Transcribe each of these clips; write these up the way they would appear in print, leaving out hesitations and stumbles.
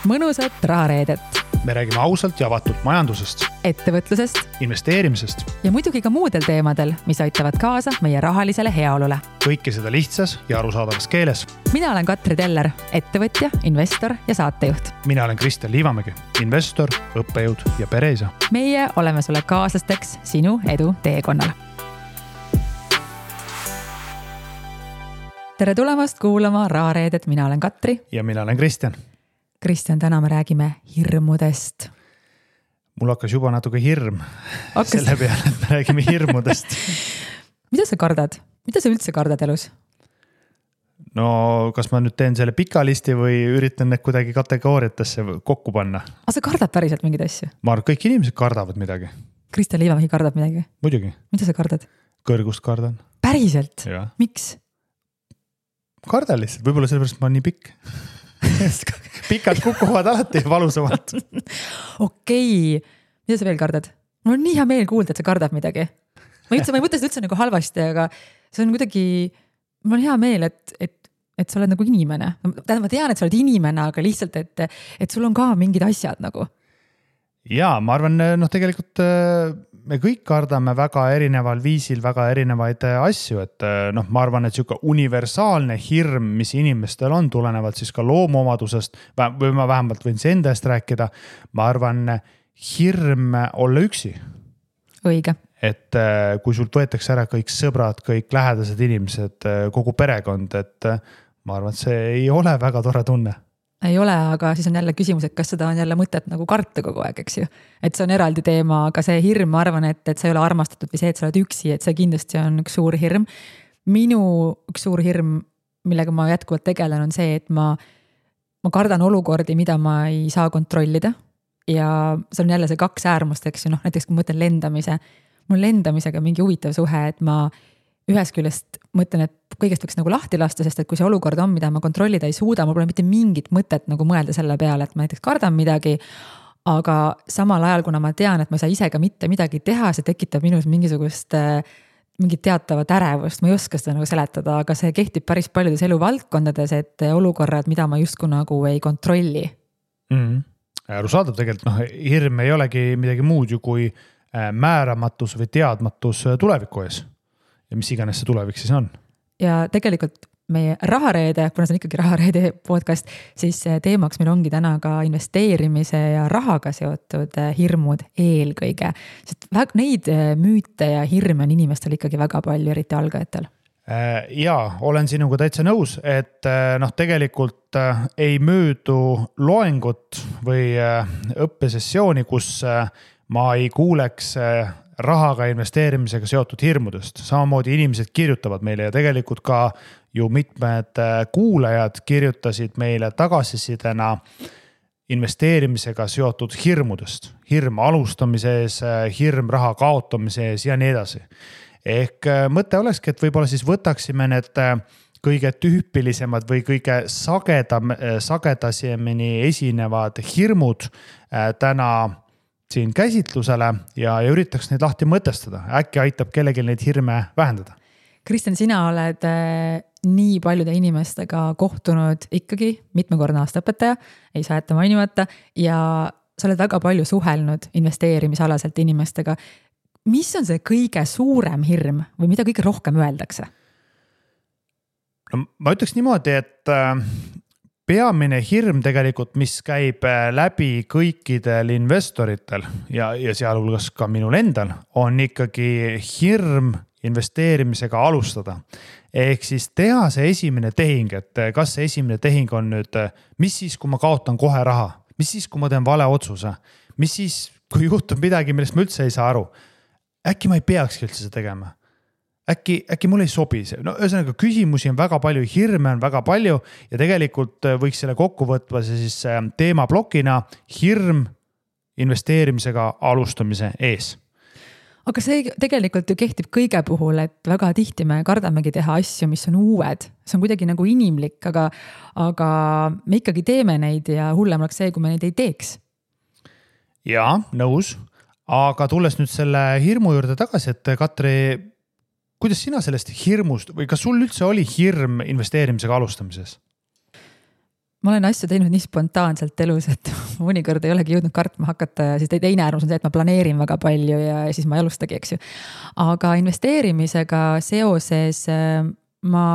mõnusat rahareedet. Me räägime ausalt ja avatult majandusest, ettevõtlusest investeerimisest ja muidugi ka muudel teemadel, mis aitavad kaasa meie rahalisele heaolule. Kõike seda lihtsas ja arusaadavas keeles. Mina olen Katri Teller, ettevõtja, investor ja saatejuht. Mina olen Kristjan Liivamägi, investor, õppejõud ja pereisa. Meie oleme sulle kaaslasteks sinu edu teekonnal. Tere tulemast kuulama Rahareedet, mina olen Katri. Ja mina olen Kristjan. Kristjan, täna me räägime hirmudest. Mul hakkas juba natuke hirm selle peale, et me räägime hirmudest. Mida sa kardad? Mida sa üldse kardad elus? No, kas ma nüüd teen selle pika listi või üritan need kuidagi kategooriatesse kokku panna? Sa kardad päriselt mingeid asju? Ma arvan, kõik inimesed kardavad midagi. Kristjan Liivamägi kardab midagi? Muidugi. Mida sa kardad? Kõrgust kardan. Päriselt? Ja. Miks? Kardan lihtsalt, võib-olla sellepärast ma olen nii pikk. Pikad kukuvad alati valusamalt. Okei. Mida sa veel kardad? Mul on nii hea meel kuulda, et sa kardad midagi. Ma ei mõtle seda üldse nagu halvasti, aga see on kuidagi, mul on hea meel, et sa oled nagu inimene. Ma tean, et sa oled inimene, aga lihtsalt, et sul on ka mingid asjad nagu. Jaa, ma arvan, tegelikult me kõik kardame väga erineval viisil väga erinevaid asju, et ma arvan, et siuke universaalne hirm, mis inimestel on tulenevalt siis ka loomuomadusest, või ma vähemalt võin see enda eest rääkida, ma arvan, hirm olla üksi. Õige. Et kui sult võetakse ära kõik sõbrad, kõik lähedased inimesed, kogu perekond, et ma arvan, et see ei ole väga tore tunne. Ei ole, aga siis on jälle küsimus, et kas seda on jälle mõtet nagu karta kogu aeg, eks ju. Et see on eraldi teema, aga see hirm, ma arvan, et sa ei ole armastatud või see, et sa oled üksi, et see kindlasti on üks suur hirm. Minu üks suur hirm, millega ma jätkuvalt tegelen, on see, et ma kardan olukordi, mida ma ei saa kontrollida. Ja see on jälle see kaks äärmust, eks ju, näiteks kui mõtlen lendamise. Mul lendamisega mingi huvitav suhe, et ma ühest küljest mõtlen, et kõigest võiks nagu lahti lasta, sest et kui see olukord on, mida ma kontrollida ei suuda, mul pole mitte mingit mõtet nagu mõelda selle peale, et ma näiteks kardan midagi, aga samal ajal, kuna ma tean, et ma ei saa ise ka mitte midagi teha, see tekitab minus mingisugust mingit teatavat ärevust, ma ei oska seda nagu seletada, aga see kehtib päris paljudes eluvaldkondades, et olukorrad, mida ma justkui nagu ei kontrolli. Arusaadav tegelikult, hirm ei olegi midagi muud ju kui määramatus või teadmatus tuleviku ees. Ja mis iganes see tulevik siis on. Ja tegelikult meie rahareede, kuna see on ikkagi rahareede podcast, siis teemaks meil ongi täna ka investeerimise ja rahaga seotud hirmud eelkõige. Sest neid müüte ja hirme on inimestel ikkagi väga palju, eriti algajatel. Jaa, olen sinuga täitsa nõus, et tegelikult ei möödu loengut või õppesessiooni, kus ma ei kuuleks rahaga investeerimisega seotud hirmudest. Samamoodi inimesed kirjutavad meile ja tegelikult ka ju mitmed kuulajad kirjutasid meile tagasisidena investeerimisega seotud hirmudest. Hirm alustamise ees, hirm raha kaotamise ees ja nii edasi. Ehk mõte olekski, et võib-olla siis võtaksime need kõige tüüpilisemad või kõige sagedasemini esinevad hirmud täna siin käsitlusele ja üritaks neid lahti mõtestada. Äkki aitab kellelgi neid hirme vähendada. Kristjan, sina oled nii paljude inimestega kohtunud ikkagi mitmekordne aastaõpetaja, ei saa jätta mainimata, ja sa oled väga palju suhelnud investeerimisalaselt inimestega. Mis on see kõige suurem hirm või mida kõige rohkem öeldakse? No, ma ütleks niimoodi, et peamine hirm tegelikult, mis käib läbi kõikidel investoritel ja sealhulgas ka minul endal, on ikkagi hirm investeerimisega alustada. Ehk siis teha see esimene tehing, et kas see esimene tehing on nüüd, mis siis, kui ma kaotan kohe raha, mis siis, kui ma teen vale otsuse, mis siis, kui juhtub midagi, millest ma üldse ei saa aru, äkki ma ei peakski üldse seda tegema. Äkki mul ei sobi see. No ühesõnaga küsimusi on väga palju, hirme on väga palju ja tegelikult võiks selle kokku võtva siis teemablokina hirm investeerimisega alustamise ees. Aga see tegelikult ju kehtib kõige puhul, et väga tihti me kardamegi teha asju, mis on uued. See on kuidagi nagu inimlik, aga me ikkagi teeme neid ja hullem oleks see, kui me neid ei teeks. Jaa, nõus. Aga tulles nüüd selle hirmu juurde tagasi, et Katri, kuidas sina sellest hirmust või kas sul üldse oli hirm investeerimisega alustamises? ma olen asju teinud nii spontaanselt elus, et mõnikord ei olegi jõudnud kartma hakata ja siis teine äärmus on see, et ma planeerin väga palju ja siis ma ei alustagi, eks ju. Aga investeerimisega seoses ma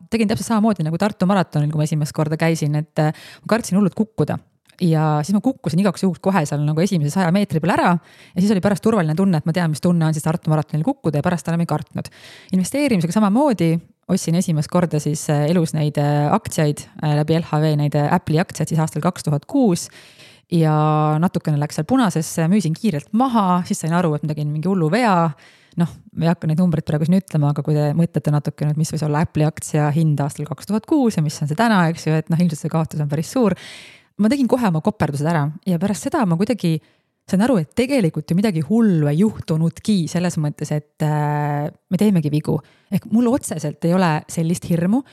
tegin täpselt samamoodi nagu Tartu maratonil, kui ma esimest korda käisin, et ma kartsin hullult kukkuda. Ja siis ma kukkusin igaks juhuks kohe seal nagu esimese 100 meetri peal ära ja siis oli pärast turvaline tunne, et ma tean, mis tunne on siis Tartu maratonil kukkuda ja pärast enam ei kartnud. Investeerimisega samamoodi ostsin esimest korda siis elus neid aktsiaid läbi LHV, neid Apple'i aktsiaid siis aastal 2006 ja natukene läks seal punasesse, müüsin kiirelt maha, siis sain aru, et ma tegin mingi hullu vea. Noh, me ei hakka neid numbreid praegu siin ütlema, aga kui te mõtlete natukene, et mis võis olla Apple'i aktsia hind aastal 2006 ja mis on see täna, eks ju, et ilmselt see kaotus on päris suur. Ma tegin kohe oma koperdused ära ja pärast seda ma kuidagi sain aru, et tegelikult ju midagi hullu ei juhtunudki selles mõttes, et me teemegi vigu. Ehk mul otseselt ei ole sellist hirmu.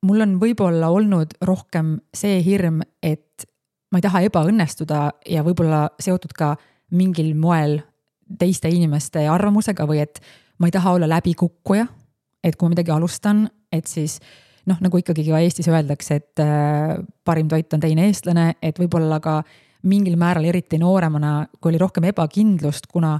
Mul on võib-olla olnud rohkem see hirm, et ma ei taha ebaõnnestuda ja võib-olla seotud ka mingil moel teiste inimeste arvamusega või et ma ei taha olla läbikukkuja, et kui ma midagi alustan, et siis nagu ikkagi ka Eestis öeldakse, et parim toit on teine eestlane, et võib-olla ka mingil määral eriti nooremana, kui oli rohkem ebakindlust, kuna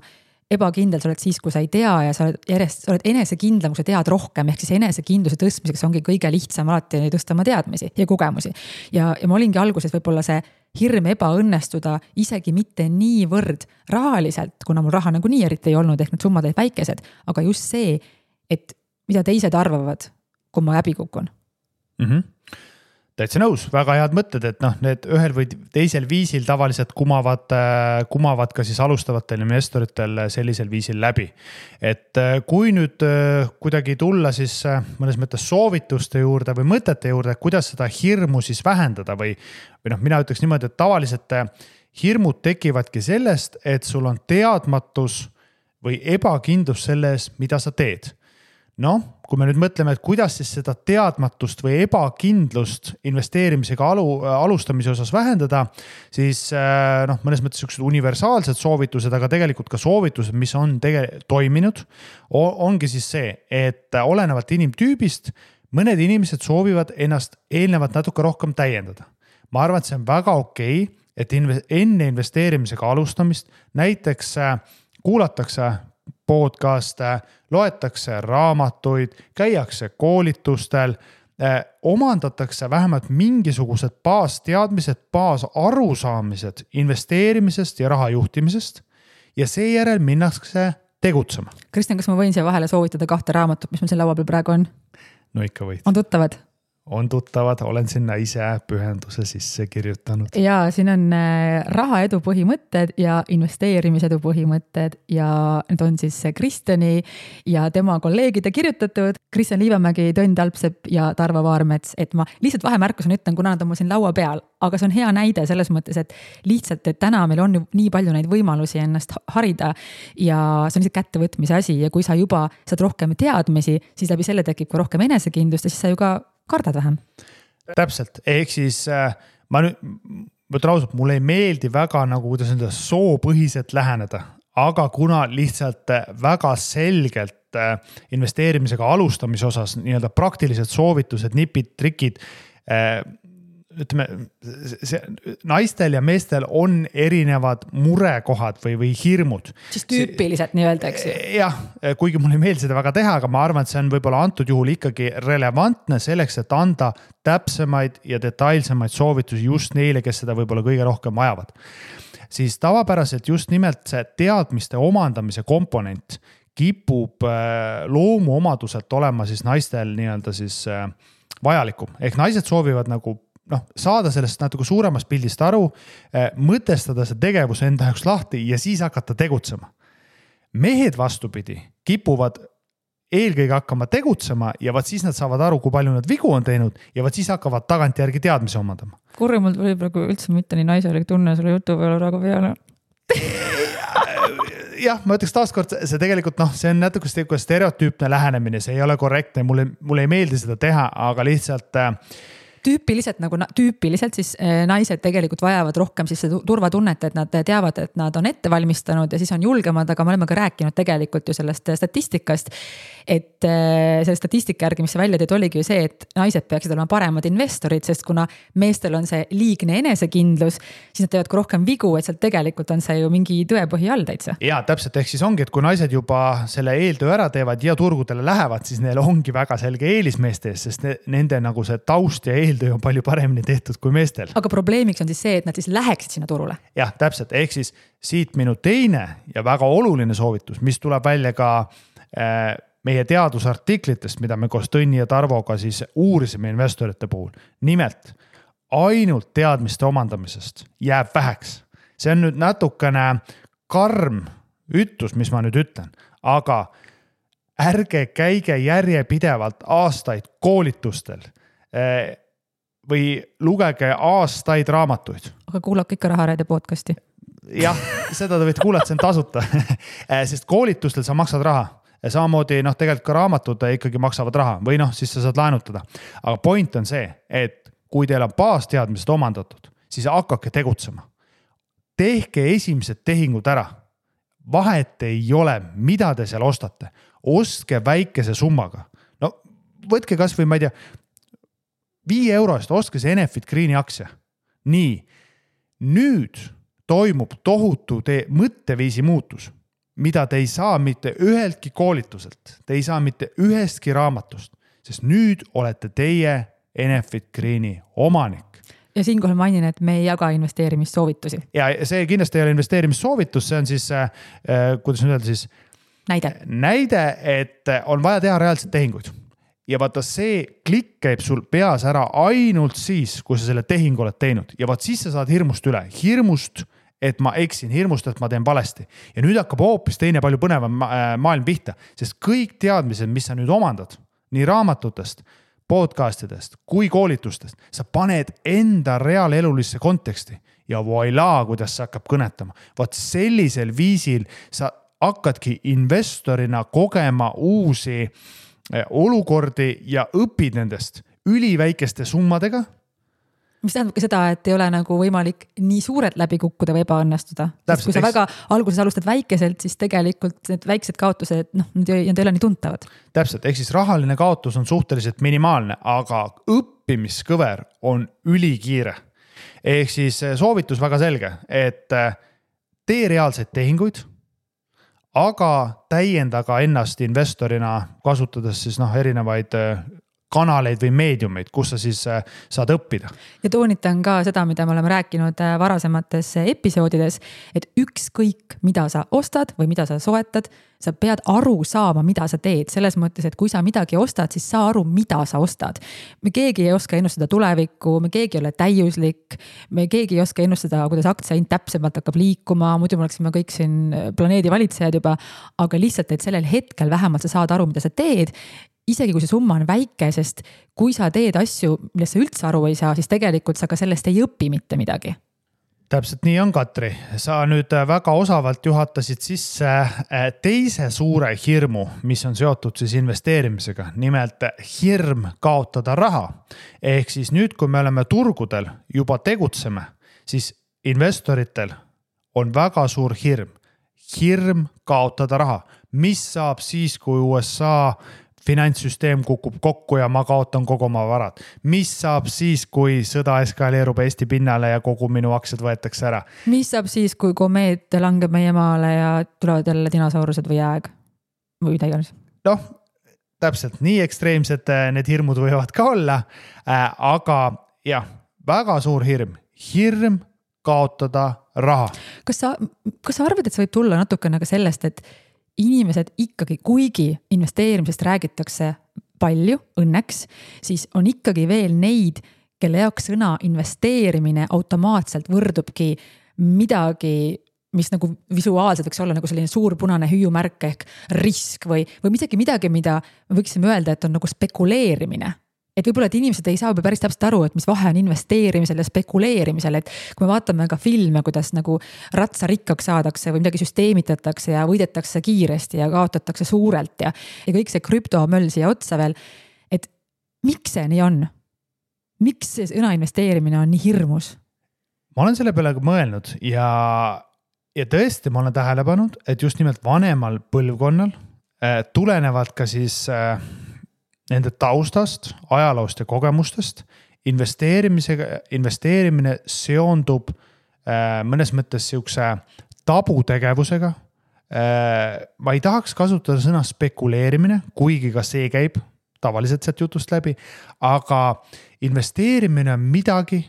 ebakindel sa oled siis, kui sa ei tea ja sa oled enesekindlam, kui sa tead rohkem, ehk siis enesekindluse tõstmiseks ongi kõige lihtsam alati tõsta oma teadmisi ja kogemusi. Ja ma olingi alguses võib-olla see hirm ebaõnnestuda isegi mitte niivõrd rahaliselt, kuna mul raha nagu nii eriti ei olnud, ehk need summad olid väikesed, aga just see, et mida teised arvavad, kui ma läbi kukun. Täitsa nõus, väga head mõtted, et need ühel või teisel viisil tavaliselt kumavad ka siis alustavatel investoritel sellisel viisil läbi. Et kui nüüd kuidagi tulla siis mõnes mõttes soovituste juurde või mõtete juurde, kuidas seda hirmu siis vähendada või mina ütleks niimoodi, et tavaliselt hirmud tekivadki sellest, et sul on teadmatus või ebakindlus selles, mida sa teed. Kui me nüüd mõtleme, et kuidas siis seda teadmatust või ebakindlust investeerimisega alustamise osas vähendada, siis mõnes mõttes sellised universaalsed soovitused, aga tegelikult ka soovitused, mis on toiminud, ongi siis see, et olenevalt inimtüübist, mõned inimesed soovivad ennast eelnevalt natuke rohkem täiendada. Ma arvan, et see on väga okei, et enne investeerimisega alustamist näiteks kuulatakse podcaste, loetakse raamatuid, käiakse koolitustel, omandatakse vähemalt mingisugused baasteadmised, baasarusaamised investeerimisest ja raha juhtimisest ja seejärel minnakse tegutsema. Kristjan, kas ma võin siia vahele soovitada 2 raamatut, mis meil siin laua peal praegu on? No ikka võid. On tuttavad? On tuttavad, olen sinna ise pühenduse sisse kirjutanud. Ja siin on rahaedu põhimõtted ja investeerimisedu põhimõtted ja need on siis Kristjani ja tema kolleegide kirjutatud. Kristjan Liivamägi, Tõnd Alpsepp ja Tarvo Vaarmets, et ma lihtsalt vahemärkusena ütlen, kuna nad on mul siin laua peal, aga see on hea näide selles mõttes, et lihtsalt, et täna meil on nii palju neid võimalusi ennast harida ja see on lihtsalt kättevõtmise asi ja kui sa juba saad rohkem teadmisi, siis läbi selle tekib ka rohkem enesekindlust ja siis sa ju ka kardad vähem. Täpselt, ehk siis ma nüüd mõtlen ausalt, mulle ei meeldi väga nagu kuidas enda soopõhiselt läheneda, aga kuna lihtsalt väga selgelt investeerimisega alustamise osas nii-öelda praktilised soovitused, nipid, trikid, ütleme, naistel ja meestel on erinevad murekohad või hirmud. Siis tüüpiliselt nii öelda, eks ju? Jah, kuigi mulle ei meeldi seda väga teha, aga ma arvan, et see on võib-olla antud juhul ikkagi relevantne selleks, et anda täpsemaid ja detailsemaid soovitusi just neile, kes seda võib-olla kõige rohkem vajavad. Siis tavapäraselt just nimelt see teadmiste omandamise komponent kipub loomuomaduselt olema siis naistel nii-öelda siis vajalikum. Ehk naised soovivad nagu saada sellest natuke suuremast pildist aru, mõtestada see tegevus enda jaoks lahti ja siis hakata tegutsema. Mehed vastupidi kipuvad eelkõige hakkama tegutsema ja vaat siis nad saavad aru, kui palju nad vigu on teinud ja vaat siis hakkavad tagantjärgi teadmisi omandama. Kurri, mul tuli praegu üldse mitte nii naiselik tunne selle jutu peale praegu peale. Jah, ma ütleks taaskord, see tegelikult see on natuke stereotüüpne lähenemine, see ei ole korrektne, mulle ei meeldi seda teha, aga lihtsalt tüüpiliselt siis naised tegelikult vajavad rohkem siis turvatunnet, et nad teavad, et nad on ette valmistanud ja siis on julgemad, aga me oleme ka rääkinud tegelikult ju sellest statistikast, et selle statistika järgi, mis see välja teed, oligi ju see, et naised peaksid olema paremad investorid, sest kuna meestel on see liigne enesekindlus, siis nad teevad ka rohkem vigu, et sealt tegelikult on see ju mingi tõepõhi all täitsa. Ja täpselt, ehk siis ongi, et kui naised juba selle eeltöö ära teevad ja turgudele lähevad, siis neil ongi väga selge eelis meeste ees, sest nende nagu see taust ja eeltöö on palju paremini tehtud kui meestel. Aga probleemiks on siis see, et nad siis läheksid sinna turule. Jah, täpselt, ehk siis siit minu teine ja väga oluline soovitus, mis tuleb välja ka meie teadusartiklitest, mida me koos Tõnni ja Tarvoga siis uurisime investorite puhul. Nimelt, ainult teadmiste omandamisest jääb väheks. See on nüüd natukene karm ütlus, mis ma nüüd ütlen, aga ärge käige järjepidevalt aastaid koolitustel või lugege aastaid raamatuid. Aga kuulake ikka Rahareide podcasti. Jah, seda te võite kuulata, see on tasuta, sest koolitustel sa maksad raha. Samamoodi tegelikult ka raamatud ikkagi maksavad raha või siis sa saad laenutada. Aga point on see, et kui teil on baasteadmised omandatud, siis hakake tegutsema. Tehke esimesed tehingud ära. Vahet ei ole, mida te seal ostate. Ostke väikese summaga. No võtke kas või, ma ei tea, 5 eurost ostke see Enefit Greeni aktsia. Nii, nüüd toimub tohutu mõtteviisi muutus, mida te ei saa mitte üheltki koolituselt, te ei saa mitte ühestki raamatust, sest nüüd olete teie Enefit Greeni omanik. Ja siinkohal mainin, et me ei jaga investeerimissoovitusi. Ja see kindlasti ei ole investeerimissoovitus, see on siis, kuidas nüüd öelda siis? Näide, et on vaja teha reaalselt tehinguid. Ja vaata see klikk käib sul peas ära ainult siis, kui sa selle tehing oled teinud. Ja vaat siis sa saad hirmust üle. Hirmust, et ma eksin, hirmust, et ma teen valesti. Ja nüüd hakkab hoopis teine palju põnevam maailm pihta, sest kõik teadmised, mis sa nüüd omandad, nii raamatutest, podcastidest kui koolitustest, sa paned enda reaalelulisse konteksti ja voila, kuidas sa hakkab kõnetama. Vaat sellisel viisil sa hakkadki investorina kogema uusi olukordi ja õpid nendest üliväikeste summadega. Mis tähendab ka seda, et ei ole nagu võimalik nii suurelt läbi kukkuda või ebaõnnestuda. Sest kui sa väga alguses alustad väikeselt, siis tegelikult need väiksed kaotused, need ei ole nii tuntavad. Täpselt, ehk siis rahaline kaotus on suhteliselt minimaalne, aga õppimiskõver on ülikiire. Ehk siis soovitus väga selge, et tee reaalseid tehinguid, aga täiendaga ennast investorina kasutades siis erinevaid kanaleid või meediumeid, kus sa siis saad õppida. Ja toonitan ka seda, mida me oleme rääkinud varasemates episoodides, et ükskõik, mida sa ostad või mida sa soetad, sa pead aru saama, mida sa teed. Selles mõttes, et kui sa midagi ostad, siis saa aru, mida sa ostad. Me keegi ei oska ennustada tulevikku, me keegi ei ole täiuslik, me keegi ei oska ennustada, kuidas aktsiahind täpsemalt hakkab liikuma, muidu me oleksime kõik siin planeedi valitsejad juba, aga lihtsalt, et sellel hetkel vähemalt sa saad aru, mida sa teed. Isegi kui see summa on väike, sest kui sa teed asju, millest sa üldse aru ei saa, siis tegelikult sa ka sellest ei õpi mitte midagi. Täpselt nii on, Katri. Sa nüüd väga osavalt juhatasid sisse teise suure hirmu, mis on seotud siis investeerimisega. Nimelt hirm kaotada raha. Ehk siis nüüd, kui me oleme turgudel juba tegutseme, siis investoritel on väga suur hirm. Hirm kaotada raha. Mis saab siis, kui USA finantssüsteem kukub kokku ja ma kaotan kogu oma varad. Mis saab siis, kui sõda eskaleerub Eesti pinnale ja kogu minu aktsiad võetakse ära? Mis saab siis, kui komeet langeb meie maale ja tulevad jälle dinosaurused või jääg? Või mida iganes? Täpselt nii ekstreemsed need hirmud võivad ka olla, aga jah, väga suur hirm. Hirm kaotada raha. Kas sa arvad, et see võib tulla natukene ka sellest, et inimesed ikkagi, kuigi investeerimisest räägitakse palju, õnneks, siis on ikkagi veel neid, kelle jaoks sõna investeerimine automaatselt võrdubki midagi, mis nagu visuaalselt võiks olla nagu selline suur punane hüüumärk ehk risk või isegi midagi, mida me võiksime öelda, et on nagu spekuleerimine. Et võib-olla, et inimesed ei saa päris täpselt aru, et mis vahe on investeerimisel ja spekuleerimisel, et kui me vaatame ka filme, kuidas nagu ratsa rikkaks saadakse või midagi süsteemitatakse ja võidetakse kiiresti ja kaotatakse suurelt ja kõik see krüptomöll siia otsa veel, et miks see nii on? miks see sõna investeerimine on nii hirmus? Ma olen selle peale mõelnud ja tõesti ma olen tähele pannud, et just nimelt vanemal põlvkonnal tulenevalt ka siis nende taustast, ajaloost ja kogemustest, investeerimine seondub mõnes mõttes siukse tabutegevusega. Ma ei tahaks kasutada sõna spekuleerimine, kuigi ka see käib tavaliselt sealt jutust läbi, aga investeerimine on midagi,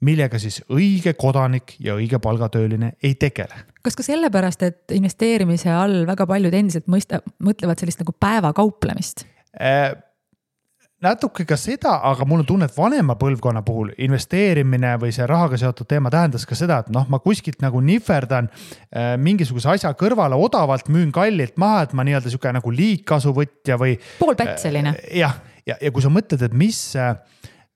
millega siis õige kodanik ja õige palgatööline ei tegele. Kas ka sellepärast, et investeerimise all väga paljud endiselt mõtlevad sellist nagu päevakauplemist? Natuke ka seda, aga mul on tunne, et vanema põlvkonna puhul investeerimine või see rahaga seotud teema tähendas ka seda, et ma kuskilt nagu nihverdan mingisuguse asja kõrvale odavalt, müün kallilt maha, et ma nii-öelda siuke nagu liigkasuvõtja või poolpätseline. Ja kui sa mõtled, et mis,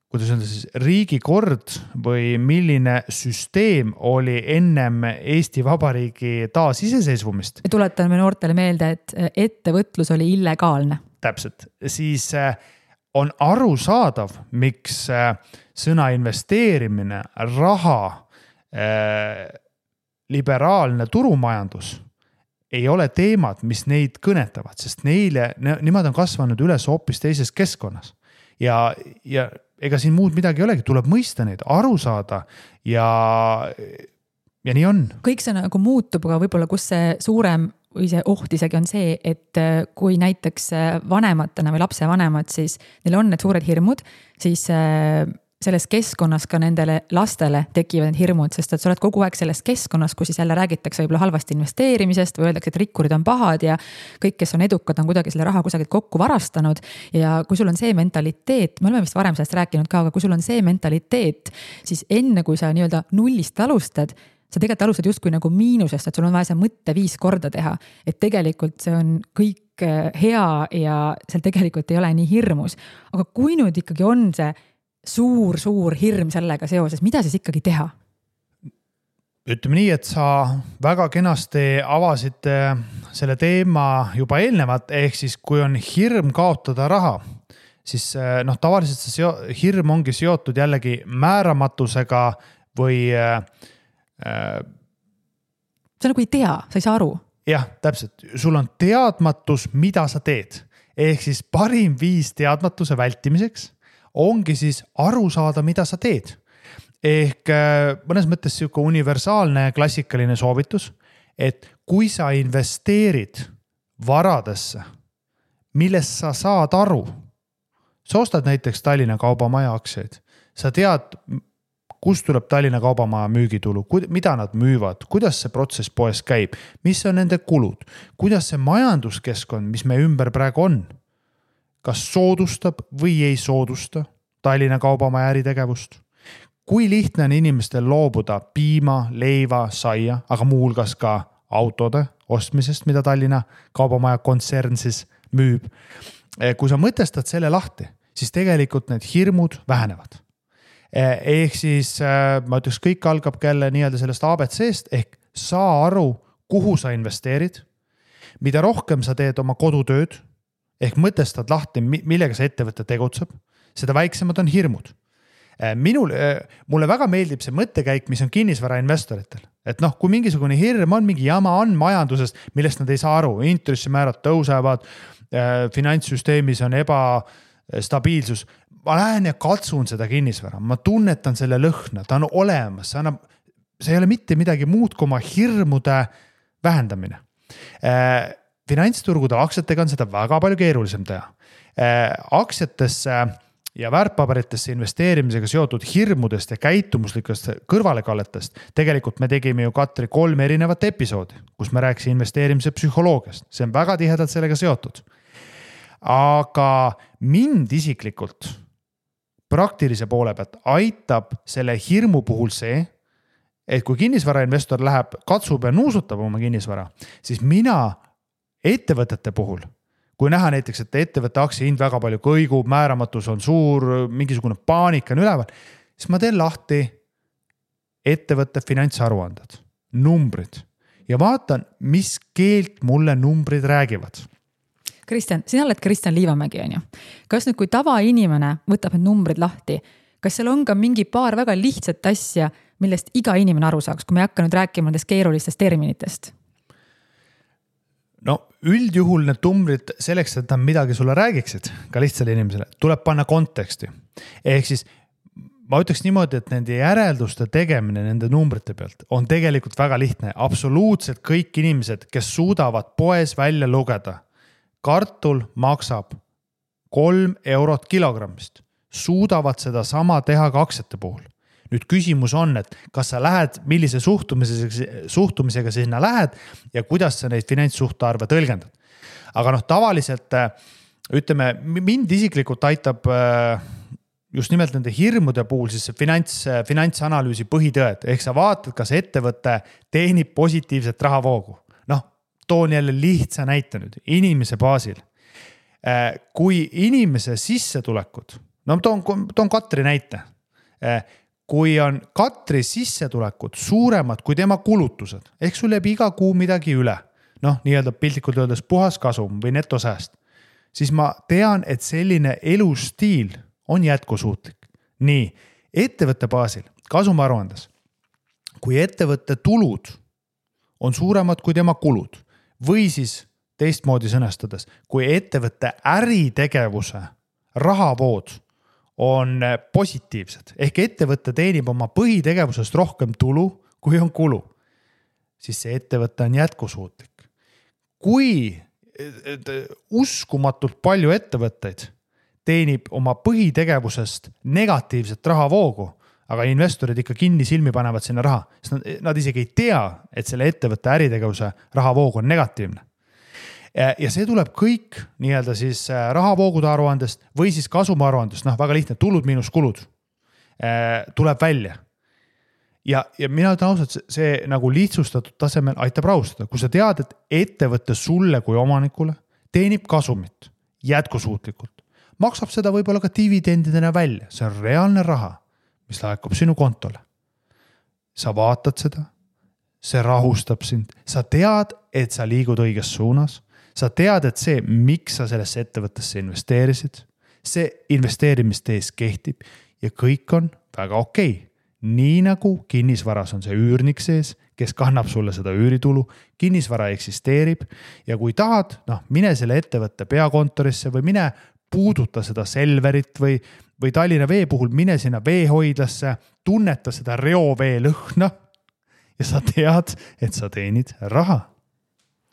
kuidas öelda siis, riigikord või milline süsteem oli ennem Eesti Vabariigi taasiseseisvumist. Me tuletame noortele meelde, et ettevõtlus oli illegaalne. Täpselt, siis on arusaadav, miks sõna investeerimine, raha, liberaalne turumajandus ei ole teemad, mis neid kõnetavad, sest nemad on kasvanud üles hoopis teises keskkonnas. Ja ega siin muud midagi ei olegi, tuleb mõista neid, aru saada ja nii on. Kõik see nagu muutub, aga võib-olla kus see suurem või see oht isegi on see, et kui näiteks vanematena või lapsevanemad, siis neil on need suured hirmud, siis selles keskkonnas ka nendele lastele tekivad need hirmud, sest et sa oled kogu aeg selles keskkonnas, kus siis jälle räägitakse võib-olla halvasti investeerimisest või öeldakse, et rikkurid on pahad ja kõik, kes on edukad, on kuidagi selle raha kusagilt kokku varastanud. Ja kui sul on see mentaliteet, me oleme vist varem sellest rääkinud ka, aga kui sul on see mentaliteet, siis enne kui sa nii-öelda nullist alustad, sa tegelikult alustad justkui nagu miinusest, et sul on vaja see mõtte 5 korda teha, et tegelikult see on kõik hea ja seal tegelikult ei ole nii hirmus. Aga kui nüüd ikkagi on see suur hirm sellega seoses, mida siis ikkagi teha? Ütleme nii, et sa väga kenasti avasid selle teema juba eelnevalt, ehk siis kui on hirm kaotada raha, siis tavaliselt see hirm ongi seotud jällegi määramatusega või sa nagu ei tea, sa ei saa aru. Jah, täpselt. Sul on teadmatus, mida sa teed. Ehk siis parim viis teadmatuse vältimiseks ongi siis aru saada, mida sa teed. Ehk mõnes mõttes siuke universaalne klassikaline soovitus, et kui sa investeerid varadesse, millest sa saad aru, sa ostad näiteks Tallinna Kaubamaja aktsiaid, sa tead, kust tuleb Tallinna Kaubamaja müügitulu, mida nad müüvad, kuidas see protsess poes käib, mis on nende kulud, kuidas see majanduskeskkond, mis me ümber praegu on, kas soodustab või ei soodusta Tallinna Kaubamaja äritegevust. Kui lihtne on inimestel loobuda piima, leiva, saia, aga muuhulgas ka autode ostmisest, mida Tallinna Kaubamaja kontsern siis müüb. Kui sa mõtestad selle lahti, siis tegelikult need hirmud vähenevad. Ehk siis ma ütleks, kõik algab jälle nii-öelda sellest ABC-st, ehk saa aru, kuhu sa investeerid, mida rohkem sa teed oma kodutööd, ehk mõtestad lahti, millega see ettevõte tegutseb, seda väiksemad on hirmud. Mulle väga meeldib see mõttekäik, mis on kinnisvarainvestoritel. Et kui mingisugune hirm on, mingi jama on majandusest, millest nad ei saa aru, intressimäärad tõusevad, finantssüsteemis on ebastabiilsus. Ma lähen ja katsun seda kinnisvara, ma tunnetan selle lõhna, ta on olemas, see ei ole mitte midagi muud kui oma hirmude vähendamine. Finantsturgudel aktsiatega on seda väga palju keerulisem teha. Aktsiatesse ja väärtpaberitesse investeerimisega seotud hirmudest ja käitumuslikest kõrvalekalletest. Tegelikult me tegime ju Katri 3 erinevat episoodi, kus me rääkisime investeerimise psühholoogiast. See on väga tihedalt sellega seotud. Aga mind isiklikult praktilise poole pealt aitab selle hirmu puhul see, et kui kinnisvarainvestor läheb, katsub ja nuusutab oma kinnisvara, siis mina ettevõtete puhul, kui näha näiteks, et ettevõtte aktsiahind väga palju kõigub, määramatus on suur, mingisugune paanika on üleval, siis ma teen lahti ettevõtte finantsaruanded, numbrid ja vaatan, mis keelt mulle numbrid räägivad. Kristjan, sina oled Kristjan Liivamägi, on ju. Kas nüüd, kui tavainimene võtab need numbrid lahti, kas seal on ka mingi paar väga lihtsat asja, millest iga inimene aru saaks, kui me ei hakka nüüd rääkima nendest keerulistest terminitest? No üldjuhul need numbrid selleks, et nad midagi sulle räägiksid, ka lihtsale inimesele, tuleb panna konteksti. Ehk siis ma ütleks niimoodi, et nende järelduste tegemine nende numbrite pealt on tegelikult väga lihtne. Absoluutselt kõik inimesed, kes suudavad poes välja lugeda, kartul maksab 3 eurot kilogrammist, suudavad seda sama teha ka aktsiate puhul. Nüüd küsimus on, et kas sa lähed, millise suhtumisega sinna lähed ja kuidas sa neid finantssuhtarve tõlgendad. Aga tavaliselt, ütleme, mind isiklikult aitab just nimelt nende hirmude puhul siis finantsanalüüsi põhitõed. Ehk sa vaatad, kas ettevõte teenib positiivset rahavoogu. Toon jälle lihtsa näite nüüd, inimese baasil. Kui inimese sissetulekud, toon Katri näite. Kui on Katri sissetulekud suuremad kui tema kulutused, ehk sul jääb iga kuu midagi üle, nii-öelda piltlikult öeldes puhas kasum või netosääst, siis ma tean, et selline elustiil on jätkusuutlik. Nii, ettevõtte baasil, kasumaruandes, kui ettevõtte tulud on suuremad kui tema kulud või siis teistmoodi sõnastades, kui ettevõtte äritegevuse rahavood on positiivsed, ehk ettevõte teenib oma põhitegevusest rohkem tulu, kui on kulu, siis see ettevõte on jätkusuutlik. Kui uskumatult palju ettevõtteid teenib oma põhitegevusest negatiivset rahavoogu, aga investorid ikka kinni silmi panevad sinna raha, sest nad isegi ei tea, et selle ettevõtte äritegevuse rahavoog on negatiivne. Ja see tuleb kõik nii-öelda siis rahavoogude aruandest või siis kasumaruandest, väga lihtne, tulud miinus kulud tuleb välja. Ja mina ütlen ausalt, see nagu lihtsustatud tasemel aitab rahustada. Kui sa tead, et ettevõtte sulle kui omanikule teenib kasumit jätkusuutlikult, maksab seda võib-olla ka dividendidena välja. See on reaalne raha, mis laekub sinu kontole. Sa vaatad seda, see rahustab sind. Sa tead, et sa liigud õiges suunas. Sa tead, et see, miks sa sellesse ettevõttesse investeerisid, see investeerimistees kehtib ja kõik on väga okei. Nii nagu kinnisvaras on see üürnik sees, kes kannab sulle seda üüritulu, kinnisvara eksisteerib ja kui tahad, mine selle ettevõtte peakontorisse või mine puuduta seda Selverit või Tallinna Vee puhul mine sinna veehoidlasse, tunneta seda reovee lõhna ja sa tead, et sa teenid raha.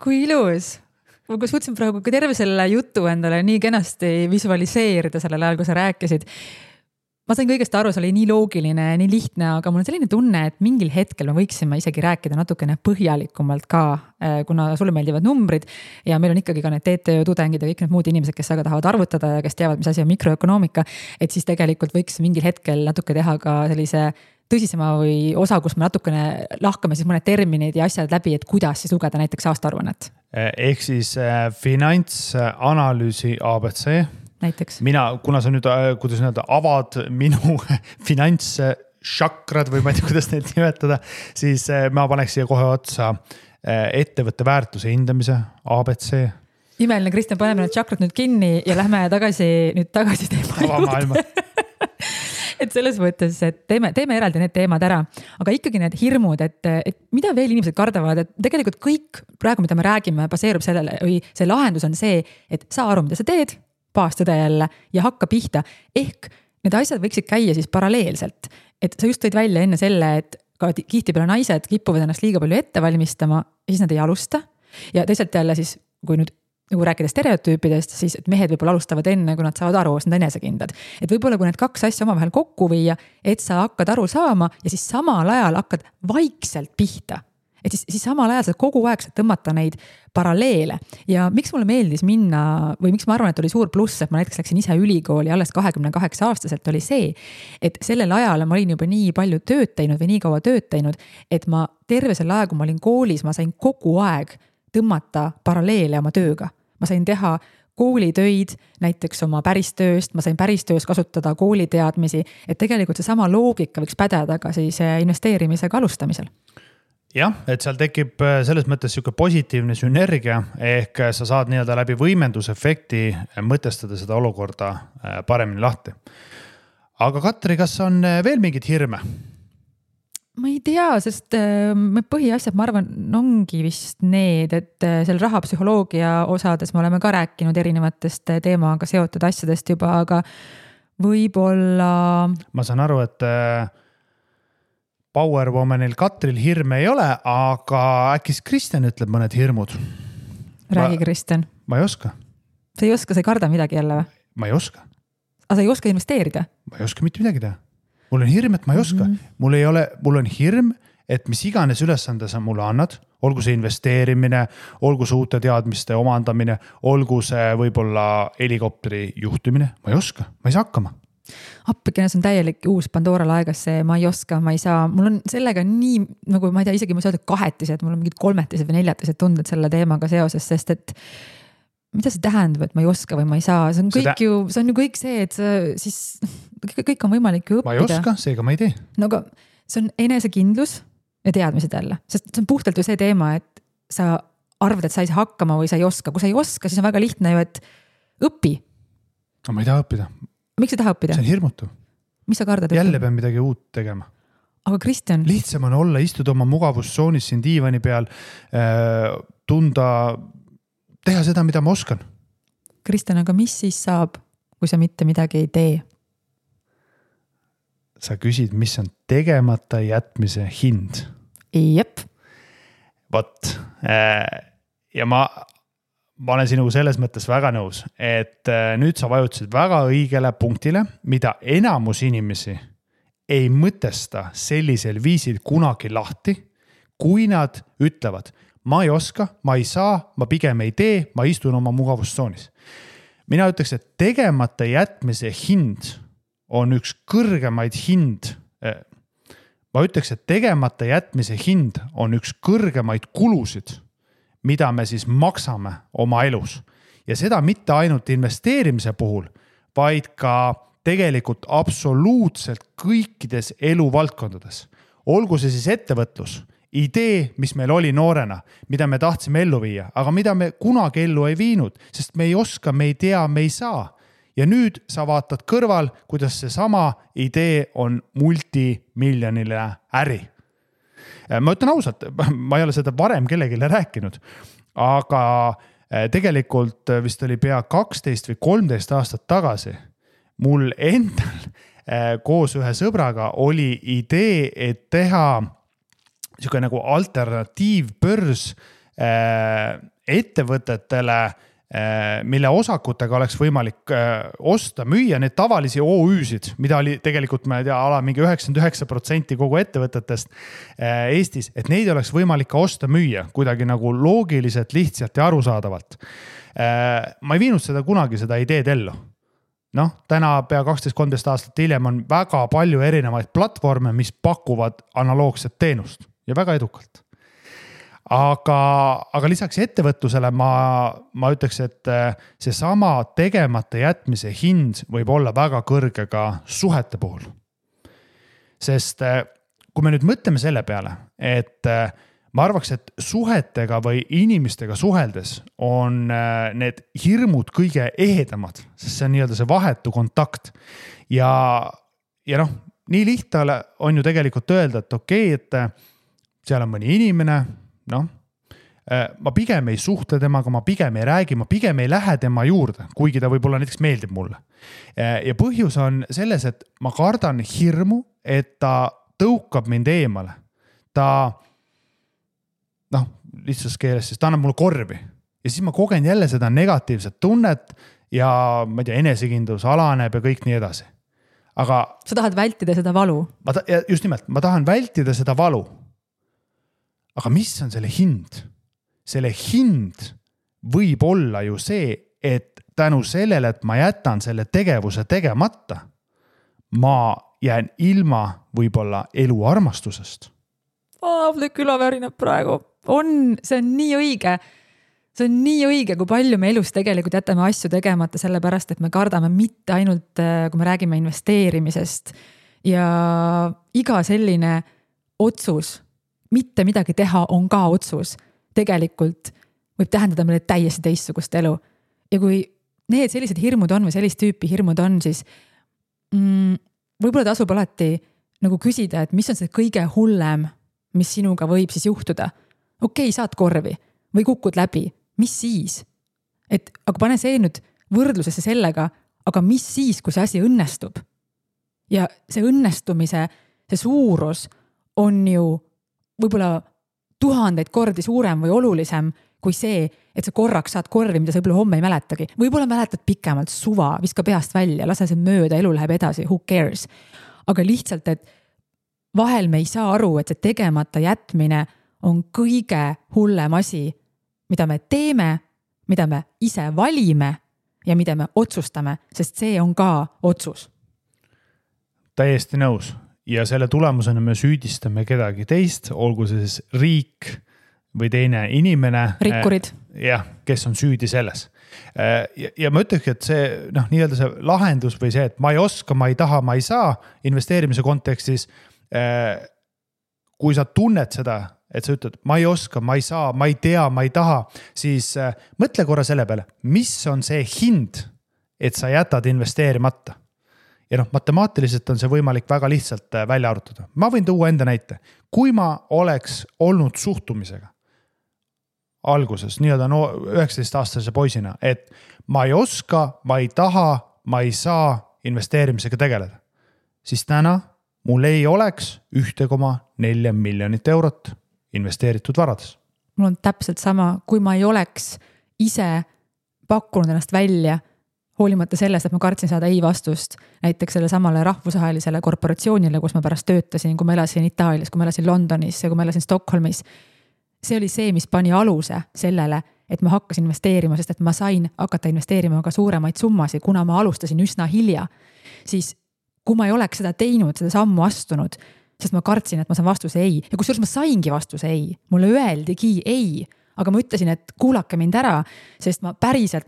Kui ilus! Ma suutsin praegu terve selle jutu endale nii kenasti visualiseerida sellel ajal, kui sa rääkisid. Ma sain kõigest aru, see oli nii loogiline, nii lihtne, aga mul on selline tunne, et mingil hetkel me võiksime isegi rääkida natukene põhjalikumalt ka, kuna sulle meeldivad numbrid ja meil on ikkagi ka need TTÖ-tudengid ja kõik need muud inimesed, kes aga tahavad arvutada ja kes teavad, mis asi on mikroökonoomika, et siis tegelikult võiks mingil hetkel natuke teha ka sellise tõsisema või osa, kus me natukene lahkame siis mõned terminid ja asjad läbi, et kuidas siis lugeda näiteks aastaaruannet. Ehk siis finantsanalüüsi ABC. Näiteks. Kuna sa nüüd, kuidas öelda, avad minu finantsšakrad või ma ei tea, kuidas neid nimetada, siis ma paneks siia kohe otsa ettevõtte väärtuse hindamise ABC. Imeline, Kristjan, paneme need šakrad nüüd kinni ja lähme tagasi teema juurde. Et selles mõttes, et teeme eraldi need teemad ära, aga ikkagi need hirmud, et mida veel inimesed kardavad, et tegelikult kõik praegu, mida me räägime, baseerub sellele või see lahendus on see, et saa aru, mida sa teed, baastõde jälle ja hakka pihta. Ehk need asjad võiksid käia siis paralleelselt, et sa just tõid välja enne selle, et ka tihtipeale naised kipuvad ennast liiga palju ette valmistama ja siis nad ei alusta ja teisalt jälle siis, kui nüüd nagu rääkida stereotüüpidest, siis et mehed võib-olla alustavad enne, kui nad saavad aru, sest nad enesekindlad. Et võib-olla kui need kaks asja omavahel kokku viia, et sa hakkad aru saama ja siis samal ajal hakkad vaikselt pihta. Et siis samal ajal sa kogu aeg saad tõmmata neid paralleele. Ja miks mulle meeldis minna või miks ma arvan, et oli suur pluss, et ma näiteks läksin ise ülikooli alles 28-aastaselt oli see, et sellel ajal ma olin juba nii palju tööd teinud või nii kaua tööd teinud, et ma terve selle aja, kui ma olin koolis, ma sain kogu aeg tõmmata paralleele oma tööga. Ma sain teha koolitöid näiteks oma päristööst, ma sain päristöös kasutada kooliteadmisi, et tegelikult see sama loogika võiks pädeda ka siis investeerimisega alustamisel. Jah, et seal tekib selles mõttes siuke positiivne sünergia, ehk sa saad nii-öelda läbi võimendusefekti mõtestada seda olukorda paremini lahti. aga Katri, kas on veel mingid hirme? Ma ei tea, sest põhiasjad, ma arvan, ongi vist need, et seal rahapsühholoogia osades me oleme ka rääkinud erinevatest teemaga seotud asjadest juba, aga võib-olla... Ma saan aru, et Powerwomanil Katril hirme ei ole, aga äkki Kristjan ütleb mõned hirmud? Räägi, Kristjan. Ma ei oska. Sa ei oska, sa ei karda midagi jälle või? Ma ei oska. Aga sa ei oska investeerida? Ma ei oska mitte midagi teha. Mul on hirm, et ma ei oska. Mul on hirm, et mis iganes ülesande sa mulle annad, olgu see investeerimine, olgu see uute teadmiste omandamine, olgu see võib-olla helikopteri juhtimine, ma ei oska, ma ei saa hakkama. Appikene, see on täielik uus Pandora laegas, see ma ei oska, ma ei saa, mul on sellega nii, nagu ma ei tea, isegi ma saa öelda kahetised, mul on mingid kolmetised või neljatised tunded selle teemaga seoses, sest et mida see tähendab, et ma ei oska või ma ei saa, see on ju kõik see, et sa siis kõik on võimalik ju õppida. Ma ei oska, seega ma ei tee. No aga see on enesekindlus ja teadmised jälle, sest see on puhtalt ju see teema, et sa arvad, et sa ei saa hakkama või sa ei oska. Kui sa ei oska, siis on väga lihtne ju, et õpi. No ma ei taha õppida. Miks sa taha õppida? See on hirmutav. Mis sa kardad? Jälle pean midagi uut tegema. Aga Kristjan... Lihtsam on olla, istuda oma mugavustsoonis siin diivani peal, tunda... teha seda, mida ma oskan. Kristjan, aga mis siis saab, kui sa mitte midagi ei tee? Sa küsid, mis on tegemata jätmise hind? Jep. Vot. Ja ma olen sinuga selles mõttes väga nõus, et nüüd sa vajutasid väga õigele punktile, mida enamus inimesi ei mõtesta sellisel viisil kunagi lahti, kui nad ütlevad, ma ei oska, ma ei saa, ma pigem ei tee, ma istun oma mugavustsoonis. Mina ütleks, et tegemata jätmise hind on üks kõrgemaid hind. Ma ütleks, et tegemata jätmise hind on üks kõrgemaid kulusid, mida me siis maksame oma elus. Ja seda mitte ainult investeerimise puhul, vaid ka tegelikult absoluutselt kõikides eluvaldkondades. Olgu see siis ettevõtlus, idee, mis meil oli noorena, mida me tahtsime ellu viia, aga mida me kunagi ellu ei viinud, sest me ei oska, me ei tea, me ei saa. Ja nüüd sa vaatad kõrval, kuidas see sama idee on multimiljonile äri. Ma ütlen ausalt, ma ei ole seda varem kellegile rääkinud, aga tegelikult vist oli pea 12 või 13 aastat tagasi. Mul endal koos ühe sõbraga oli idee, et teha niisugune nagu alternatiivbörs ettevõtetele, mille osakutega oleks võimalik osta, müüa need tavalisi OÜ-sid, mida oli tegelikult, ma ei tea, mingi 99% kogu ettevõtetest Eestis, et neid oleks võimalik ka osta, müüa kuidagi nagu loogiliselt, lihtsalt ja arusaadavalt. Ma ei viinud seda kunagi, seda ideed ellu. Täna pea 12-13 aastat hiljem on väga palju erinevaid platvorme, mis pakuvad analoogset teenust ja väga edukalt. Aga lisaks ettevõtlusele ma ütleks, et see sama tegemata jätmise hind võib olla väga kõrge ka suhete puhul. Sest kui me nüüd mõtleme selle peale, et ma arvaks, et suhetega või inimestega suheldes on need hirmud kõige ehedamad, sest see on nii-öelda see vahetu kontakt. Ja nii lihtne on ju tegelikult öelda, et okei, et seal on mõni inimene, ma pigem ei suhtle temaga, ma pigem ei räägi, ma pigem ei lähe tema juurde, kuigi ta võib-olla näiteks meeldib mulle. Ja põhjus on selles, et ma kardan hirmu, et ta tõukab mind eemale. Ta, lihtsas keeles, siis ta annab mulle korvi. Ja siis ma kogen jälle seda negatiivset tunnet ja ma ei tea, enesekindlus alaneb ja kõik nii edasi. Aga sa tahad vältida seda valu? Just nimelt, ma tahan vältida seda valu. Aga mis on selle hind? Selle hind võib olla ju see, et tänu sellele, et ma jätan selle tegevuse tegemata, ma jään ilma võib-olla elu armastusest. Küla värinab praegu. See on nii õige. See on nii õige, kui palju me elus tegelikult jätame asju tegemata sellepärast, et me kardame mitte ainult, kui me räägime investeerimisest ja iga selline otsus, mitte midagi teha on ka otsus. Tegelikult võib tähendada meile täiesti teistsugust elu. Ja kui need sellised hirmud on või sellist tüüpi hirmud on, siis võib-olla tasub alati nagu küsida, et mis on see kõige hullem, mis sinuga võib siis juhtuda. Okei, saad korvi või kukud läbi, mis siis? Et aga pane see nüüd võrdlusesse sellega, aga mis siis, kui see asi õnnestub? Ja see õnnestumise, see suurus on ju võib-olla 1000 kordi suurem või olulisem kui see, et sa korraks saad korvi, mida sa võib-olla homme ei mäletagi. Võib-olla mäletad pikemalt, suva, viska peast välja, lase see mööda, elu läheb edasi, who cares. Aga lihtsalt, et vahel me ei saa aru, et see tegemata jätmine on kõige hullem asi, mida me teeme, mida me ise valime ja mida me otsustame, sest see on ka otsus. Täiesti nõus. Ja selle tulemusena me süüdistame kedagi teist, olgu see siis riik või teine inimene. Rikkurid. Jah, kes on süüdi selles. Ja ma ütleks, et see, nii-öelda see lahendus või see, et ma ei oska, ma ei taha, ma ei saa investeerimise kontekstis, kui sa tunned seda, et sa ütled, ma ei oska, ma ei saa, ma ei tea, ma ei taha, siis mõtle korra selle peale, mis on see hind, et sa jätad investeerimata. Ja matemaatiliselt on see võimalik väga lihtsalt välja arutada. Ma võin tuua enda näite. Kui ma oleks olnud suhtumisega alguses, nii-öelda 19-aastase poisina, et ma ei oska, ma ei taha, ma ei saa investeerimisega tegeleda, siis täna mul ei oleks 1,4 miljonit eurot investeeritud varades. Mul on täpselt sama, kui ma ei oleks ise pakkunud ennast välja, hoolimata sellest, et ma kartsin saada ei vastust näiteks selle samale rahvusvahelisele korporatsioonile, kus ma pärast töötasin, kui ma elasin Itaalias, kui ma elasin Londonis ja kui ma elasin Stockholmis. See oli see, mis pani aluse sellele, et ma hakkasin investeerima, sest et ma sain hakata investeerima ka suuremaid summasid, kuna ma alustasin üsna hilja. Siis kui ma ei oleks seda teinud, seda sammu astunud, sest ma kartsin, et ma saan vastuse ei. Ja kusjuures ma saingi vastuse ei. Mulle öeldigi ei. Aga ma ütlesin, et kuulake mind ära, sest ma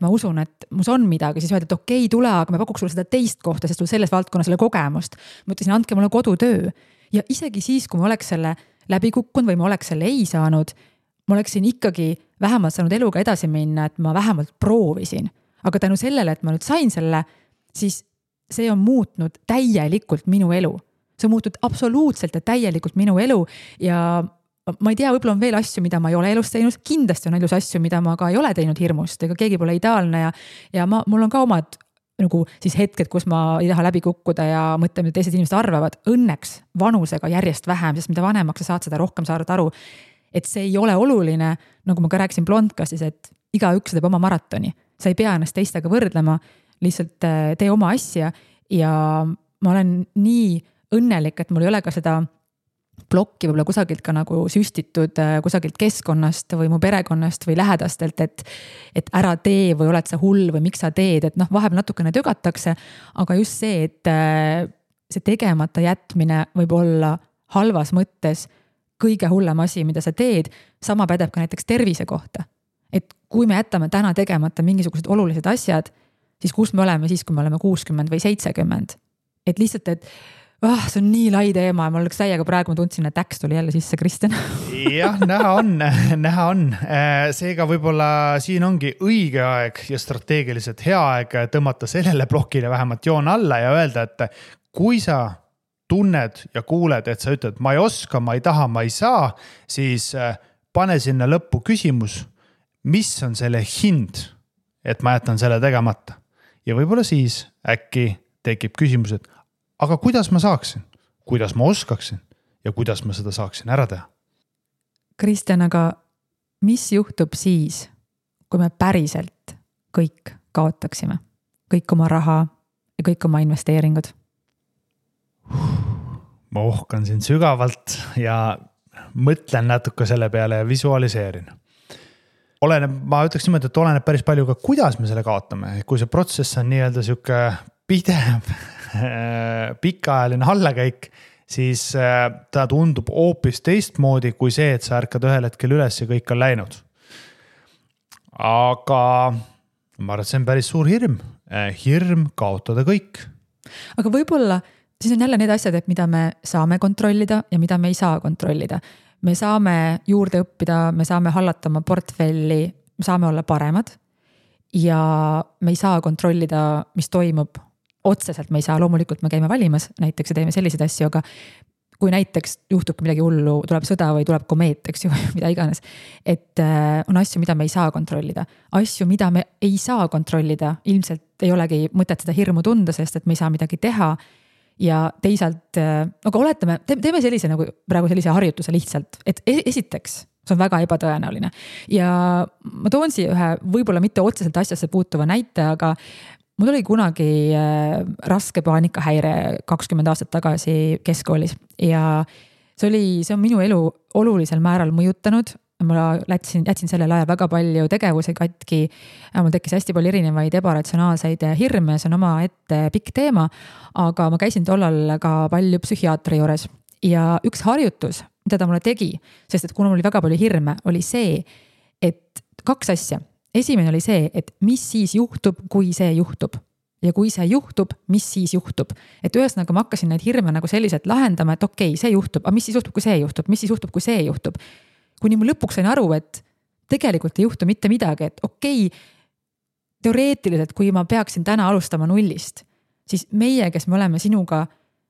usun, et mus on midagi, siis öeldi, et okei, tule, aga me pakuks sulle seda teist kohta, sest sul selles valdkonnas selle kogemust. Ma ütlesin, andke mulle kodutöö. Ja isegi siis, kui ma oleks selle läbi kukkunud või ma oleks selle ei saanud, ma oleksin ikkagi vähemalt saanud eluga edasi minna, et ma vähemalt proovisin. Aga tänu sellele, et ma nüüd sain selle, siis see on muutnud täielikult minu elu. See on muutnud absoluutselt ja täielikult minu elu ja ma ei tea, võib-olla on veel asju, mida ma ei ole elus teinud, kindlasti on elus asju, mida ma ka ei ole teinud hirmust, ega keegi pole ideaalne ja mul on ka omad nagu siis hetked, kus ma ei taha läbi kukkuda ja mõtlen, mida teised inimesed arvavad. Õnneks vanusega järjest vähem, sest mida vanemaks sa saad, seda rohkem saad aru, et see ei ole oluline, nagu ma ka rääkisin Blondcastis, et igaüks teeb oma maratoni. Sa ei pea ennast teistega võrdlema, lihtsalt tee oma asja ja ma olen nii õnnelik, et mul ei ole ka seda plokki võib-olla kusagilt ka nagu süstitud kusagilt keskkonnast või mu perekonnast või lähedastelt, et ära tee või oled sa hull või miks sa teed, et vahepeal natukene tögatakse, aga just see, et see tegemata jätmine võib olla halvas mõttes kõige hullem asi, mida sa teed, sama pädeb ka näiteks tervise kohta. Et kui me jätame täna tegemata mingisugused olulised asjad, siis kus me oleme siis, kui me oleme 60 või 70? Et lihtsalt, et see on nii lai teema ja mul oleks täiega praegu ma tundsin, et äks tuli jälle sisse, Kristjan. Jah, näha on. Seega võib-olla siin ongi õige aeg ja strateegiliselt hea aeg tõmmata sellele plokile vähemalt joon alla ja öelda, et kui sa tunned ja kuuled, et sa ütled, ma ei oska, ma ei taha, ma ei saa, siis pane sinna lõppu küsimus, mis on selle hind, et ma jätan selle tegemata. Ja võib-olla siis äkki tekib küsimus, et aga kuidas ma saaksin, kuidas ma oskaksin ja kuidas ma seda saaksin ära teha? Kristjan, aga mis juhtub siis, kui me päriselt kõik kaotaksime? Kõik oma raha ja kõik oma investeeringud? Ma ohkan siin sügavalt ja mõtlen natuke selle peale ja visualiseerin. Ma ütleks niimoodi, et oleneb päris palju ka, kuidas me selle kaotame. Kui see protsess on nii-öelda siuke pidev pikaajaline allakäik, siis ta tundub hoopis teistmoodi kui see, et sa ärkad ühel hetkel üles ja kõik on läinud. Aga ma arvan, et see on päris suur hirm. Hirm kaotada kõik. Aga võib-olla siis on jälle need asjad, et mida me saame kontrollida ja mida me ei saa kontrollida. Me saame juurde õppida, me saame hallata oma portfelli, me saame olla paremad ja me ei saa kontrollida, mis toimub otseselt me ei saa, loomulikult me käime valimas näiteks ja teeme selliseid asju, aga kui näiteks juhtubki midagi hullu, tuleb sõda või tuleb komeet, eks ju, mida iganes. Et on asju, mida me ei saa kontrollida. Asju, mida me ei saa kontrollida, ilmselt ei olegi mõtet seda hirmu tunda, sest et me ei saa midagi teha. Ja teisalt, aga oletame, teeme sellise nagu praegu sellise harjutuse lihtsalt, et esiteks, see on väga ebatõenäoline. Ja ma toon siia ühe võib-olla mitte otseselt asjasse puutuva näite, aga mul oli kunagi raske paanikahäire 20 aastat tagasi keskkoolis ja see on minu elu olulisel määral mõjutanud. Ma jätsin sellel ajal väga palju tegevusi katki, mul tekkis hästi palju erinevaid ebaratsionaalseid hirme, see on oma ette pikk teema, aga ma käisin tollal ka palju psühhiaatri juures ja üks harjutus, mida ta mulle tegi, sest et kuna mul oli väga palju hirme, oli see, et 2 asja. Esimene oli see, et mis siis juhtub, kui see juhtub. Ja kui see juhtub, mis siis juhtub. Et ühesõnaga ma hakkasin neid hirme nagu selliselt lahendama, et okei, see juhtub, aga mis siis juhtub, kui see juhtub, mis siis juhtub, kui see juhtub. Kuni ma lõpuks sain aru, et tegelikult ei juhtu mitte midagi, et okei, teoreetiliselt, kui ma peaksin täna alustama nullist, siis meie, kes me oleme sinuga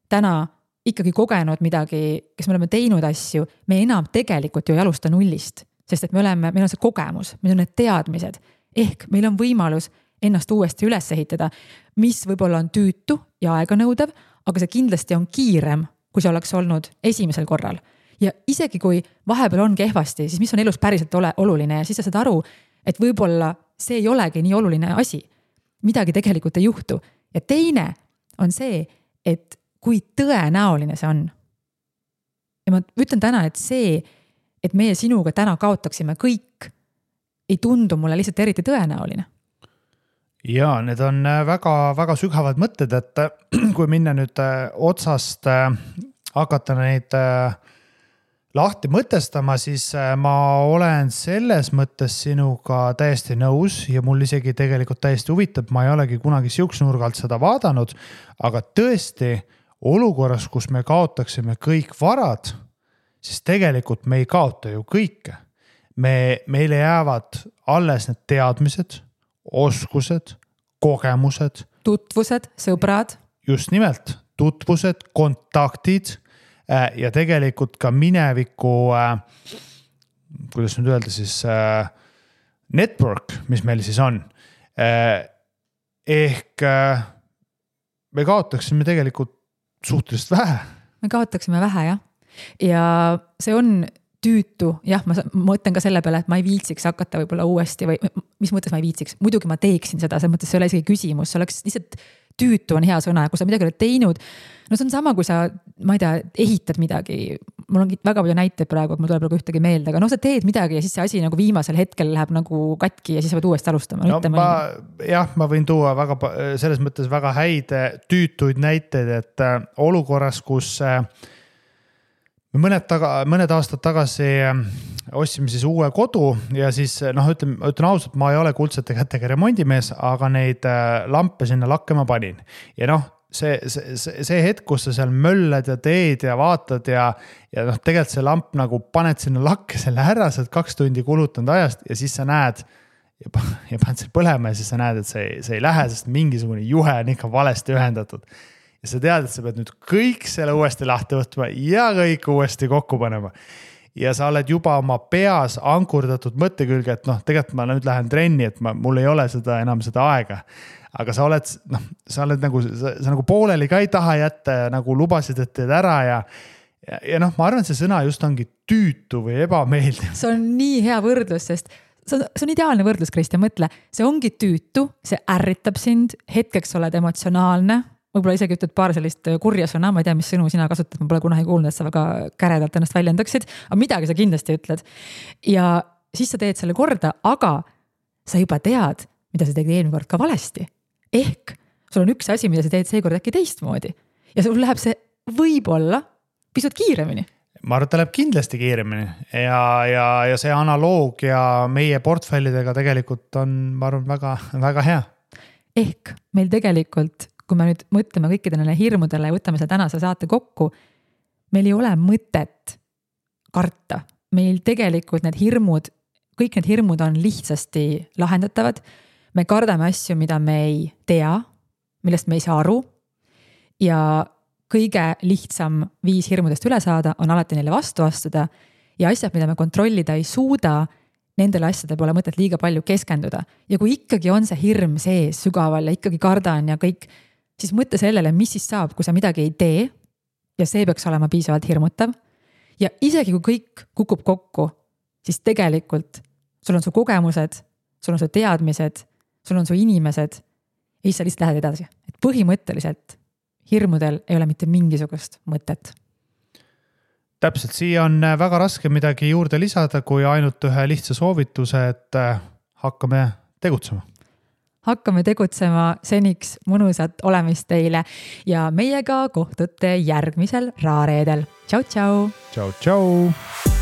täna ikkagi kogenud midagi, kes me oleme teinud asju, me enam tegelikult ju ei alusta nullist. Sest et meil on see kogemus, meil on need teadmised, ehk meil on võimalus ennast uuesti üles ehitada, mis võib-olla on tüütu ja aeganõudev, aga see kindlasti on kiirem, kui see oleks olnud esimesel korral. Ja isegi kui vahepeal on kehvasti, siis mis on elus päriselt oluline ja siis sa saad aru, et võib-olla see ei olegi nii oluline asi. Midagi tegelikult ei juhtu. Ja teine on see, et kui tõenäoline see on. Ja ma ütlen täna, et see, et meie sinuga täna kaotaksime kõik, ei tundu mulle lihtsalt eriti tõenäoline. Ja need on väga, väga sügavad mõtted, et kui minna nüüd otsast hakata neid lahti mõtestama, siis ma olen selles mõttes sinuga täiesti nõus ja mul isegi tegelikult täiesti huvitab, ma ei olegi kunagi siukse nurgalt seda vaadanud, aga tõesti olukorras, kus me kaotaksime kõik varad, siis tegelikult me ei kaota ju kõike. Meile jäävad alles need teadmised, oskused, kogemused. Tutvused, sõbrad. Just nimelt, tutvused, kontaktid ja tegelikult ka mineviku, kuidas nüüd öelda siis, network, mis meil siis on. Ehk me kaotaksime tegelikult suhteliselt vähe. Me kaotaksime vähe, jah. Ja see on tüütu, jah, ma mõtlen ka selle peale, et ma ei viitsiks hakata võib-olla uuesti või mis mõttes ma ei viitsiks, muidugi ma teeksin seda, see mõttes see ei ole isegi küsimus, see oleks lihtsalt tüütu on hea sõna, kui sa midagi oled teinud, no see on sama, kui sa, ma ei tea, ehitad midagi, mul on väga palju näiteid praegu, et mul tuleb nagu ühtegi meelde, aga sa teed midagi ja siis see asi nagu viimasel hetkel läheb nagu katki ja siis sa pead uuesti alustama. No, ma võin tuua selles mõttes väga häid tüütuid näiteid, et olukorras, kus mõned aastad tagasi ostsime siis uue kodu ja siis ütlen ausalt, ma ei ole kuldsete kätega remondimees, aga neid lampe sinna lakkema panin. Ja see hetk, kus sa seal möllad ja teed ja vaatad ja tegelikult see lamp nagu paned sinna lakke selle ära, sa oled 2 tundi kulutanud ajast ja siis sa näed ja paned selle põlema ja siis sa näed, et see ei lähe, sest mingisugune juhe on ikka valesti ühendatud. Ja sa tead, et sa pead nüüd kõik selle uuesti lahti võtma ja kõik uuesti kokku panema. Ja sa oled juba oma peas ankurdatud mõtte külge, et tegelikult ma nüüd lähen trenni, et mul ei ole enam seda aega. Aga sa oled nagu pooleli ka ei taha jätta ja nagu lubasid, et teed ära ja ma arvan, et see sõna just ongi tüütu või ebameeldiv. See on nii hea võrdlus, sest see on ideaalne võrdlus, Kristjan, mõtle. See ongi tüütu, see ärritab sind, hetkeks oled emotsionaalne, võib-olla isegi ütled paar sellist kurja sõna, ma ei tea, mis sõnu sina kasutad, ma pole kunagi kuulnud, et sa väga käredalt ennast väljendaksid, aga midagi sa kindlasti ütled. Ja siis sa teed selle korda, aga sa juba tead, mida sa tegid eelmine kord ka valesti. Ehk sul on üks asi, mida sa teed seekord äkki teistmoodi. Ja sul läheb see võib-olla pisut kiiremini. Ma arvan, et ta läheb kindlasti kiiremini ja see analoogia meie portfellidega tegelikult on, ma arvan, väga, väga hea. Ehk meil tegelikult kui me nüüd mõtleme kõikidele hirmudele ja võtame seda tänase saate kokku, meil ei ole mõtet karta. Meil tegelikult kõik need hirmud on lihtsasti lahendatavad. Me kardame asju, mida me ei tea. millest me ei saa aru. Ja kõige lihtsam viis hirmudest üle saada on alati neile vastu astuda ja asjad, mida me kontrollida ei suuda, nendele asjade pole mõtet liiga palju keskenduda. Ja kui ikkagi on see hirm sees sügaval ja ikkagi kardan ja kõik, siis mõtle sellele, mis siis saab, kui sa midagi ei tee ja see peaks olema piisavalt hirmutav. Ja isegi kui kõik kukub kokku, siis tegelikult sul on su kogemused, sul on su teadmised, sul on su inimesed ja siis sa lihtsalt lähed edasi. Et põhimõtteliselt hirmudel ei ole mitte mingisugust mõtet. Täpselt, siia on väga raske midagi juurde lisada, kui ainult ühe lihtsa soovituse, et hakkame tegutsema. Hakkame tegutsema, seniks mõnusat olemist teile ja meiega kohtute järgmisel Raareedel. Tšau, tšau! Tšau, tšau!